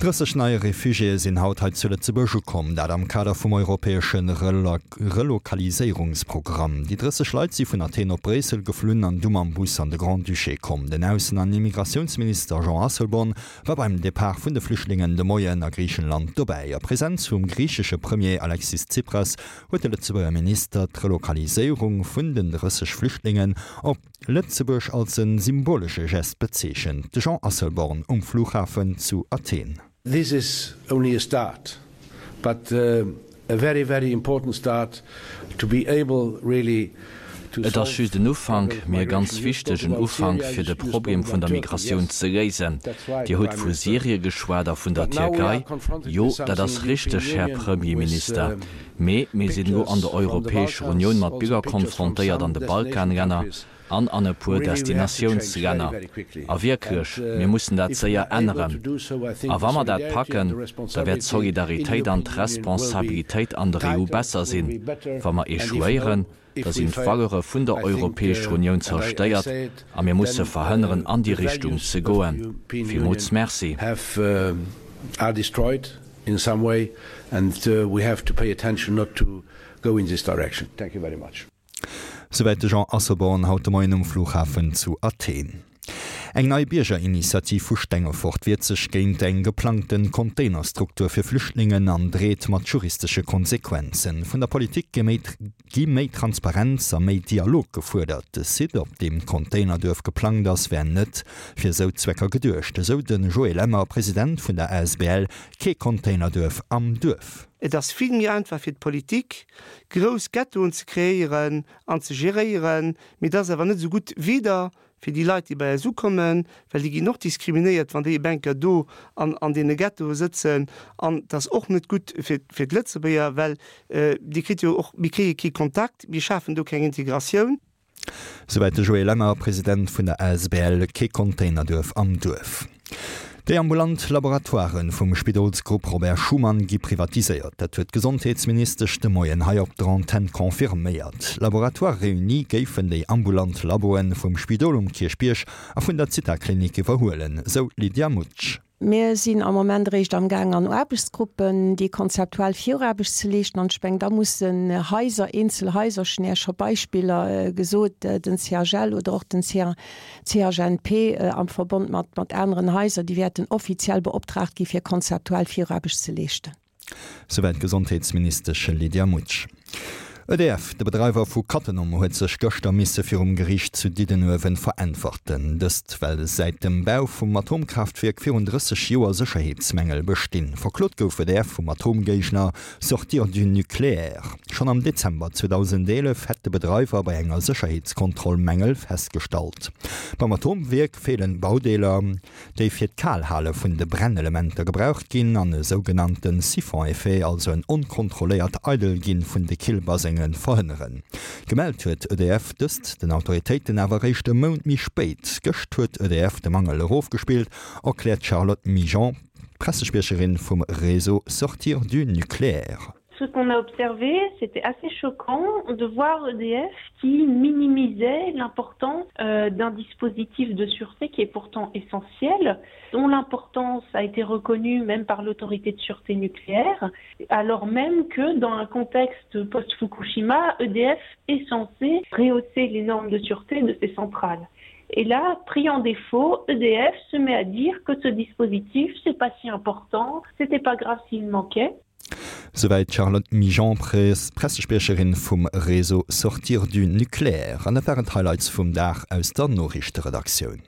30 nei Refugiéë sinn haut hei zu Lëtzebuerg ukomm, dat am Kader vum europäesche Relokaliséierungsprogramm. Déi 30 Leit si vun Athen op Bréissel geflunn an du mam Bus an de Grand-Duché komm. Den Aussen an Immigratiounsminister Jean Asselborn war beim Depart vun de Flüchtlingen de Moien a Griichenland dobäi. A Presenz vum griichesche Premier Alexis Tsipras huet de Lëtzebuerger Minister d'Relokaliséierung vun den 30 Flüchtlingen op Lëtzebuerg als e symbolesche Gest bezeechent. De Jean Asselborn um Flughafen zu Athen. This is only a start, but a very, very important start to be able really to Et ass solve just en Ufank, problems of mee e ganz migration. You spoke wichtegen about Ufank, Syria, fir you de spoke Problem about vun der Turkey, Migratioun yes, ze léisen. that's right, Dir hutt Prime vu Minister. Syrie geschwat a vun der But now we are Tierkei. confronted Jo, with dat something ass in the European richteg, Här Union with Premierminister. Mee mir sinn elo an pictures der from the Europäescher Unioun Balkans, mat also Biller pictures from konfrontéiert an some de destination Balkanlänner countries. an an e puer Destinatiounslänner. A wierklech, mir mussen dat séier änneren. A wa mer dat packen, da wäert d'Solidaritéit an d'Responsabilitéit an der EU besser sinn. Wa mer echouéieren, da sinn d'Valeure vun der Europäescher Unioun zerstéiert a mir musse verhënneren, an déi Richtung ze goen. Villmools Merci. Souwäit de Jean Asselborn haut de Moien um Flughafen zu Athen. Eng nei Biergerinitiativ vu Stengefort wiert sech géint eng geplangte Containerstruktur fir Flüchtlingen an dreet mat juristesche Konsequenzen. Vun der Politik gi méi Transparenz a méi Dialog gefuerdert. De Site, op deem d'Containerduerf geplangt ass, wär net fir esou Zwecker geduecht, esou de Joé Lemmer, President vun der asbl Kee Containerduerf am Duerf. Et ass vill méi einfach fir d'Politik, grouss Ghettoen ze kreéieren an ze geréieren, mee et ass awer net esou gutt weder fir déi Leit, déi bei eis ukommen, well déi ginn och diskriminéiert, wann déi e Bänker do an an deene Ghettoe sëtzen, an et ass och net gutt fir fir d'Lëtzebuerger, well Dir kritt jo och, mir kréie kee Kontakt, mir schafen do keng Integratioun. Souwäit de Joé Lemmer, President vun der asbl Kee Containerduerf am Duerf. Déi ambulant Laboratoiren vum Spidolsgrupp Robert Schuman gi privatiséiert. Dat huet d'Gesondheetsministesch de Moien hei op der Antenn confirméiert. Laboratoires Réunis géifen déi ambulant Laboen vum Spidol um Kierchbierg a vun der Zithaklinik iwwerhuelen, sou d'Lydia Mutsch. Mir sinn am Moment eréischt amgaang an Aarbechtsgruppen déi konzeptuell Viraarbecht ze leeschten. An ech mengen, da mussen Haiser, eenzel Haiser, ech hunn Iech scho Beispiller gesot, den CHL oder och den CHNP am Verbond mat aneren Haiser, déi wäerten offiziell beoptraagt gi fir konzeptuell Viraarbecht ze leeschten. Souwäit d'Gesondheetsministesch Lydia Mutsch. EDF, de Bedreiwer vu Cattenom, huet sech gëschter misse virum Geriicht zu Diddenuewen veräntwerten. Dëst well säit dem Bau vum Atomkraaftwierk virun 30 Joer Sécherheetsmängel bestinn. Verklot gouf EDF vum Atomgéigner Sortir du nucléaire. Schonn am Dezember 2011 hätt de Bedreiwer bei enger Sécherheetskontroll Mängel festgestallt. Beim Atomwierk feelen Baudeeler. déi fir d'Kalhale vun de Brennelementer gebraucht ginn, an e sougenannte Siphon-Effet, also en onkontrolléiert Eidelginn vun de Killbasengen, verhënneren. Gemellt huet EDF dëst den Autoritéiten awer eréischt e Mount méi spéit. Gëscht huet EDF de Mangel erofgespillt, erkläert d'Charlotte Migeon, Pressespriecherin vum Réseau Sortir du nucléaire. Ce qu'on a observé, c'était assez choquant de voir EDF qui minimisait l'importance euh, d'un dispositif de sûreté qui est pourtant essentiel, dont l'importance a été reconnue même par l'autorité de sûreté nucléaire, alors même que dans un contexte post-Fukushima, EDF est censé rehausser les normes de sûreté de ses centrales. Et là, pris en défaut, EDF se met à dire que ce dispositif, c'est pas si important, c'était pas grave s'il manquait. Souwäit d'Charlotte Migeon, Pressespriecherin vum Réseau Sortir du nucléaire. An dat waren d'Highlights vum Dag aus der Noriichteredaktioun.